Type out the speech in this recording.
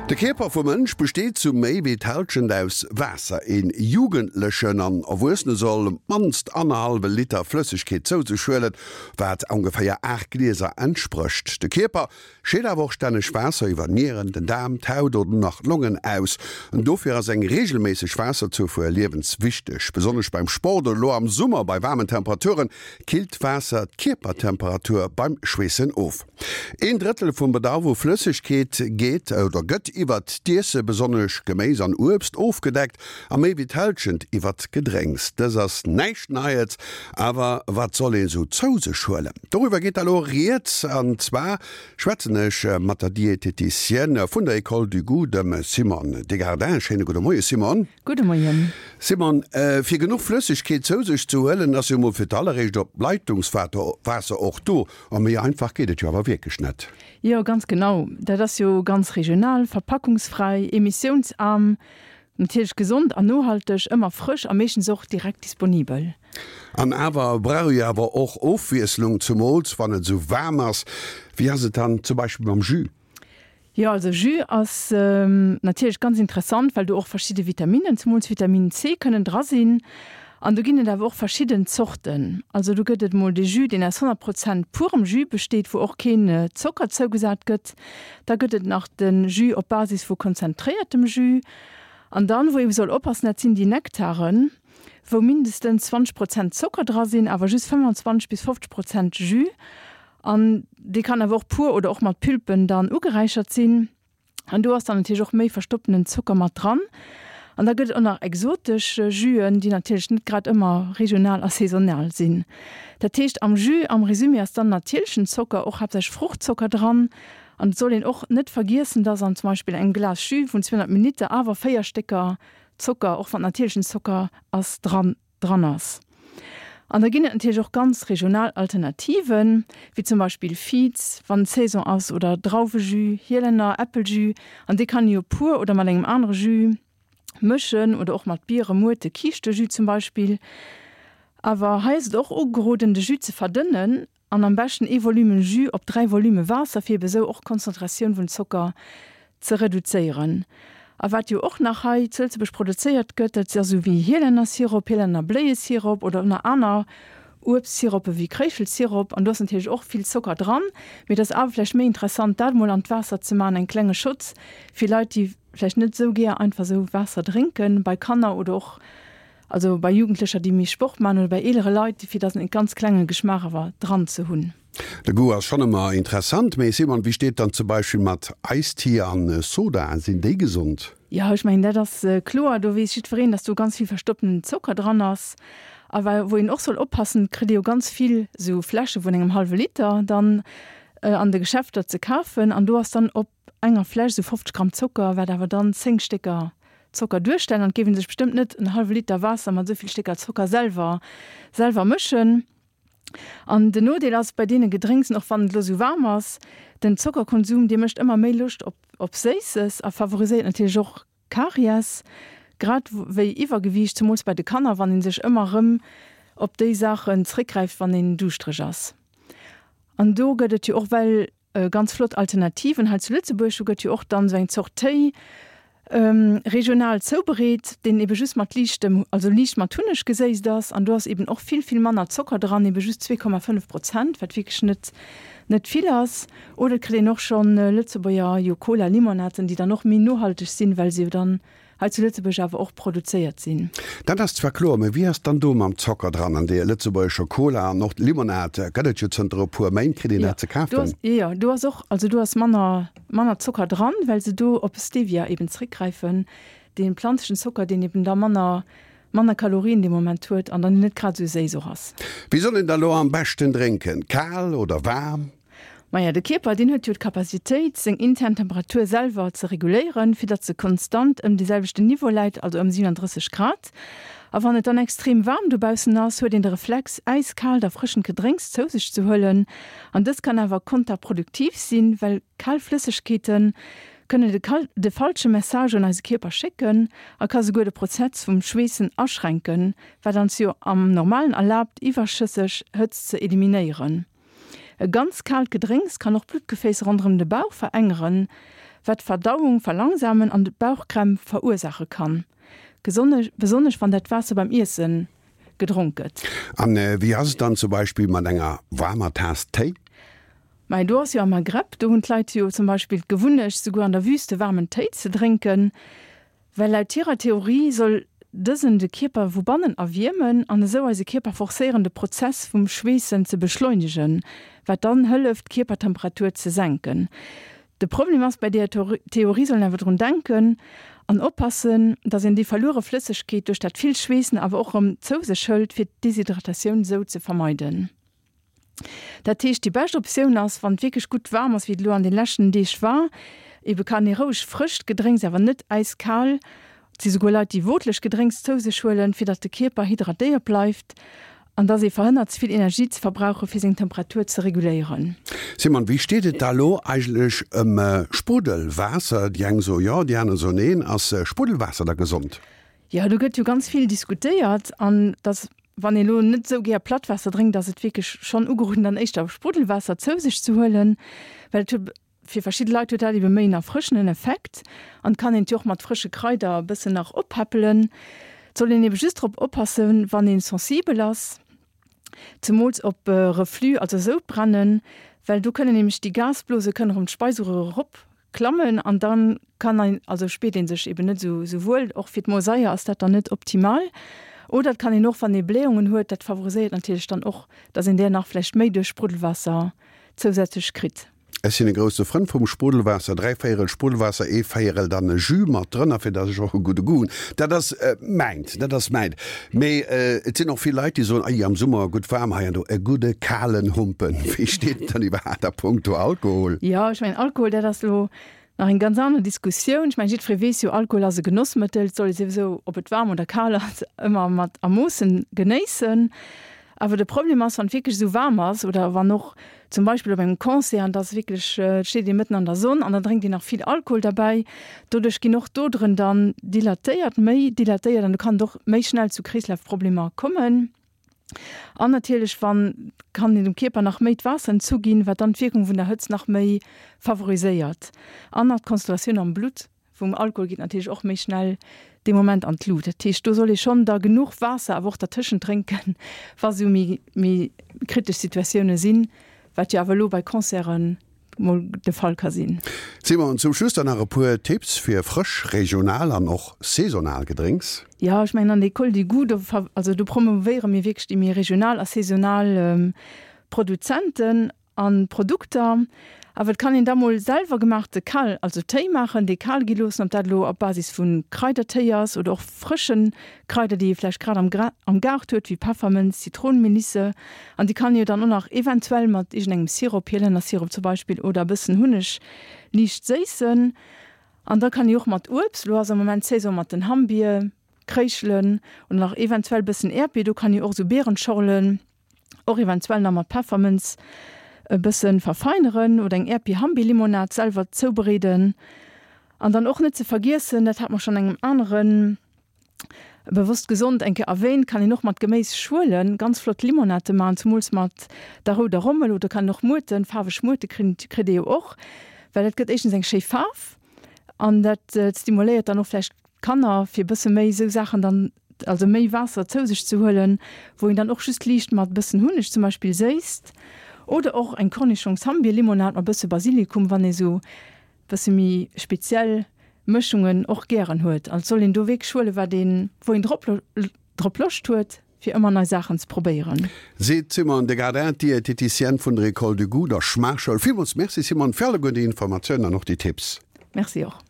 De Kierper vum Mënsch besteet zu méi wéi d'Hallschent aus Waasser. Een Jugendlechen an Erwuessene soll op d'mannst annerhallwe Liter Flëssegkeet zou sech huelen, wat ongeféier 8 Glieser entsprécht. De Kierper scheet awer och stänneg Waasser iwwer d'Nieren, den Daarm, d'Haut oder nach d'Longen aus. Dofir ass eng reegelméisseg Waasserzufuer liewenswichteg. Besonnesch beim Sport oder elo am Summer bei waarmen Temperaturen killt Waasser d'Kierpertemperatur beim Schweessen of. Een Drëttel vum Bedarf u Flëssegkeet geet oder gëtt iwwert d'Iesse, besonnesch Geméis an Uebst, ofgedeckt a méi wéi d'Hälschent iwwert d'Gedrénks. Dës ass näischt Neies, awer wat soll een sou zou sech huelen? Doriwwer geet da lo rieds an zwar schwätzen ech mat der Dieteticienne vun der École du Goût, dem Simone Degardin. Schéine gudde Moie Simone. Gudde Moien. Simone, fir genuch Flëssegkeet zou sech ze huelen, ass jo mol fir d'alleréischt op d'Leitungswaasser och do. A méi einfach geet et jo awer wierklech net. Jo, ganz genau. Dat ass jo ganz regional, verpackungsfräi, emissiounsaarm, natierlech gesond an nohalteg, ëmmer frësch a meeschtens och direkt disponibel. An awer brauch ee awer och Ofwiesslung, zumools wann et esou waarm ass. Wéi ass et dann zum Beispill mam Jus? Jo, also Jus ass natierlech ganz interessant, well do och verschidde Vitaminnen, zemools Vitamin C, kënnen dra sinn. An do ginn et awer och verschidden Zorten. Also do gëtt et mol de Jus, deen aus 100 Prozent purem Jus besteet, wou och keen Zocker zougesat gëtt. Da gëtt et nach de Jus op Basis vu konzentréiertem Jus. An dann, wou ee soll oppassen, dat sinn déi Nektaren, wou mindestens 20 Prozent Zocker dra sinn, awer just 25 bis 50 Prozent Jus. An dee kann awer och pur oder och mat Pulpen dann ugeräichert sinn. An do ass dann natierlech och méi verstoppenen Zocker mat dran. An da gëtt et och nach exotesch Juen, déi natierlech net grad ëmmer regional a saisonal sinn. Dat heescht am Jus, am Résumé, ass dann natierlechen Zocker, och haaptsächlech Fruchtzocker dran. An et soll een och net vergiessen, dass an zum Beispill engem Glas Jus vun 200 Milliliter awer 4 Stécker Zocker, och wann et natierlechen Zocker ass, dran dran ass. An da ginn et natierlech och ganz regional Alternativen, wéi zum Beispill Viz, wann Saison ass, oder Drauwejus, Hielenner Äppeljus, an dee kann ee jo pur oder mat engem anere Jus mëschen oder och mat Biere, Muerte, Kiischtejus zum Beispill. Awer hei ass et och ugeroden, de Jus ze verdënnen An am beschten ee Volume Jus op 3 Volume Waasser fir ebe sou och d'Konzentratioun vun Zocker ze reduzéieren. A wat jo och nach hei zu Lëtzebuerg produzéiert gëtt, dat ass sou wéi Hielännersirop, Hielännerbléiesirop oder och nach aner Uebstsirope wéi Kréischelsirop. An do ass natierlech och vill Zocker dran, mee et ass awer vläicht méi interessant dat mol an d'Waasser ze maachen, eng klenge Schotz fir Leit déi vläicht net sou gär einfach sou Waasser drénken, bei Kanner oder och Also bei Jugendlecher déi méi Sport man oder bei eelere Leit, fir dass en ganz klenge Geschmaach awer dran ze hunn. De Goût ass schonn ëmmer interessant, mee Simon, wéi steet dann zum Beispill mat Eistie an Soda, sinn déi gesond? Jo, ech mengen dat ass kloer, do weess jiddwereen, dass do ganz vill verstoppenen Zocker dran ass. A wa wou een och soll oppassen, et kritt ee jo ganz vill esou Fläsche vun engem hallwe Liter dann an de Geschäfter ze kafen an do ass dann op enger Fläsch esou 50 Gramm Zocker, wat awer dann 10 Stécker Zocker duerstellen. An et géif ee sech bestëmmt net en hallwe Liter Waasser mat esou vill Stécker Zocker selwer selwer mëschen. An den Nodeel ass bei deene Gedrénksen, och wann et elo esou waarm ass, den Zockerkonsum, dee mécht ëmmer méi Loscht op op Séisses a favoriséiert natierlech och Karies, grad wéi Iwwergewiicht, zemools bei de Kanner, wann ee sech ëmmer erëm op déi Saachen zréckgräift, wann een duuschtereg ass. An do gëtt et jo och well Ganz flott Alternativen hei zu Lëtzebuerg. Do gëtt jo och dann esou eng Zort Téi regional zoubereet, deen ebe just mat liichtem, also liicht mat Hunneg geséisst ass. An do ass eben och vill, vill manner Zocker dran, ebe just 2,5 Prozent, wat wierklech net, net vill ass. Oder et kritt een och schonn Lëtzebuerger jo Cola-Limonaden, déi dann och méi nohalteg sinn, well se jo dann hei zu Lëtzebuerg awer och produzéiert sinn. Dat ass zwar kloer, mä wéi ass dann do mam Zocker dran an deer lëtzebuergescher Cola an och Limonad gëtt et jo zënter e puer Méint, kritt een dat ze kafen? Jo, do ass och, also do ass manner, manner Zocker dran, well se do op Stevia eben zréckgräifen, dee planzlechen Zocker, deen eben da manner, manner Kalorien dee Moment huet an dann net grad esou séiss och ass. Wéi soll een da lo am beschten drénken, kal oder waarm? Maja, de Kierper, deen huet jo d'Capacitéit, seng intern Temperatur selwer ze reguléieren, fir datt se konstant ëm dee selwechten Niveau läit, also ëm 37 Grad. A wann et dann extrem waarm dobaussen ass, huet een de Reflex, äiskaalt, erfrëschend Gedrénks zou sech ze huelen. An dëst kann awer konterproduktiv sinn, well kal Flëssegkeete kënnen de de falsche Message un eise Kierper schécken a ka souguer de Prozess vum Schweessen aschränken, wat ons jo am Normalen erlaabt, iwwerschësseg Hëtzt ze eliminéieren. E ganz kaalt Gedrénks kann och d'Bluttgeféiss ronderëm de Bauch verengeren. wat d'Verdauung verlangsamen an Bauchkrämp verursaache kann, besonnesch wann dat Waasser beim Iesse gedronk gëtt. An wéi ass et dann zum Beispill mat enger waarmer Taass Téi? Mei do ass jo am Maghreb, do hunn d'Leit jo zum Beispill d'Gewunnecht souguer an der Wüste waarmen Téi ze drénken, well laut hirer Theorie soll dësen de Kierper vu bannen erwiermen an esou eise Kierper forcéieren de Prozess vum Schweessen ze beschleunegen, wat dann hëlleft d'Kierpertemperatur ze senken. De Problem ass, bei deeër Theorie soll een awer drun denken an oppassen, dass een déi verluere Flëssegkeet duerch dat vill Schweessen awer och erëm zou sech hëlt, fir d'Deshydratatioun esou ze vermeiden. Dat heescht, déi bescht Optioun ass, wann et wierklech gutt waarm ass, wéi et elo an de leschten Deeg war, ebe kann ee roueg frëscht Gedrénks, awer net äiskal, et si souguer Leit, déi wootleg Gedrénks zou sech huelen, fir datt de Kierper hydratéiert bleift an datt ee verhënnert, ze vill Energie ze verbrauchen, fir seng Temperatur ze reguléieren. Simon, wéi steet et da lo eigentlech ëm Spruddelwaasser? Déi eng soe jo, déi aner soen neen. Ass Spruddelwaasser da gesond? Jo, do gëtt jo ganz vill diskutéiert an dass Wann ee lo net esou gär Plattwaasser drénkt, ass et wierklech schonn ugeroden, dann éischter Spruddelwaasser zou sech ze huelen, well et huet fir verschidde Leit huet dat ebe méi en erfrëschenden Effekt an et kann een et jo och mat frësche Kraider e bëssen nach oppäppelen. Et soll een ebe just drop oppassen, wann ee sensibel ass, zemools op Reflux, also Soudbrennen, well do kënnen nämlech déi Gasblose kënnen erëm d'Speiseröhr erop Klammen an dann kann ein, also spiert een sech eben net esou esou wuel. Och fir d'Mosaier ass dat dann net optimal. Oder et kann een och, wann ee Blähungen huet, dat favoriséiert natierlech dann och, dass een där nach vläicht méi duerch Spruddelwaasser zousätzlech kritt. Ech sinn e grousse Frënd vum Spruddelwaasser, dräivéierel Spruddelwaasser, ee Véierel dann e Jus mat drënner, fir dass ech och e gudde Goût hunn. Dat ass mäint, dat ass mäint. Mee et sinn och vill Leit, déi soen, Ei, am Summer gutt waarm hei an do, e gudde kalen Humpen. Wéi steet et dann iwwerhaapt a punkto Alkohol? Jo, ech mengen, Alkohol, dat ass elo nach eng ganz aner Diskussioun. Ech mengen, jiddweree weess jo, Alkohol ass e Genossmëttel, et soll ee souwisou, ob et waarm oder kal ass, ëmmer mat a Moossen genéissen. Awer de Problem ass, wann et wierklech esou waarm ass oder wann och zum Beispill op engem Concert an et ass wierklech, et steet ee mëtten an der Sonn an dann drénkt een nach vill Alkohol derbäi, doduerch ginn och d'Oderen dann dilatéiert, méi dilatéiert an do kann et och méi schnell zu Kreeslafproblemer kommen. An natierlech wann kann een dem Kierper nach méi d'Waasser entzuginn, wat dann d'Wierkung vun der Hëtzt nach méi favoriséiert an nach d'Konzentratioun am Blutt Vum Alkohol geet natierlech och méi schnell dee Moment an d'Lut. Dat heescht, do soll ee schonn da genuch Waasser awer och dertëschent drénken, wa sou méi méi kritesch Situatioune sinn, wat jo awer elo bei Concerte mol de Fall ka sinn. Simon, zum Schluss dann nach e puer Tipps fir frësch, regional an och saisonal Gedrénks. Jo, ech mengen an der École du Goût, do also do promouvéiere mir wierklech déi méi regional a saisonal Produzenten. An Produkter, awer et kann een da mol selwer gemaachte kal, also Téi maachen, dee kal gi loossen, ob dat elo op Basis vu Kraidertéi ass oder och frësche Kraider, déi ee vläicht grad am am Gaart huet, wéi Peffermënz, Zitronenmelisse, an déi kann ee jo dann och nach eventuell mat iergendengem Sirop, Hielännersirop zum Beispill, oder e bëssen Hunneg liicht séissen. An da kann ee och mat Uebst, elo ass am Moment Saison mat den Hammbier, Kréischelen oder nach eventuell bëssen Äerdbier, do kann ee och esou Beerenschorlen, Och eventuell nach mat Peffermënz e bëssen verfeineren oder eng Äerdbier-Hambi-Limonad selwer zoubereeden. An dann och net ze vergiessen, dat hat mer schonn engem aneren Bewosst Gesond eng Kéier erwähnt, kann een och mat Geméisschuelen ganz flott Limonade maachen, zumools mat der rouder Rommel oder kann een och Muerten, faarweg Muerte kritt ee jo och, well dat gëtt éischtens eng schéi Faarf an dat stimuléiert dann och vläicht Kanner fir e bësse méi esou Saachen dann, also méi Waasser zou sech ze huelen, wou een dann och just liicht mat e bëssen Hunneg zum Beispill séisst oder och eng Cornichongs-Hammbier-Limonad mat bësse Basilikum, wann ee sou bësse méi speziell Mëschungen och gären huet. Also soll een do wierklech huelen, wat een, wou een drop drop Loscht huet, fir ëmmer nei Saachen ze probéieren. Seet d'Simone Degardin, d'Dieteticienne vun der École du Goût, der Schmaachschoul. Villmools Merci Simone fir alleguer déi Informatiounen an och déi Tipps. Merci och.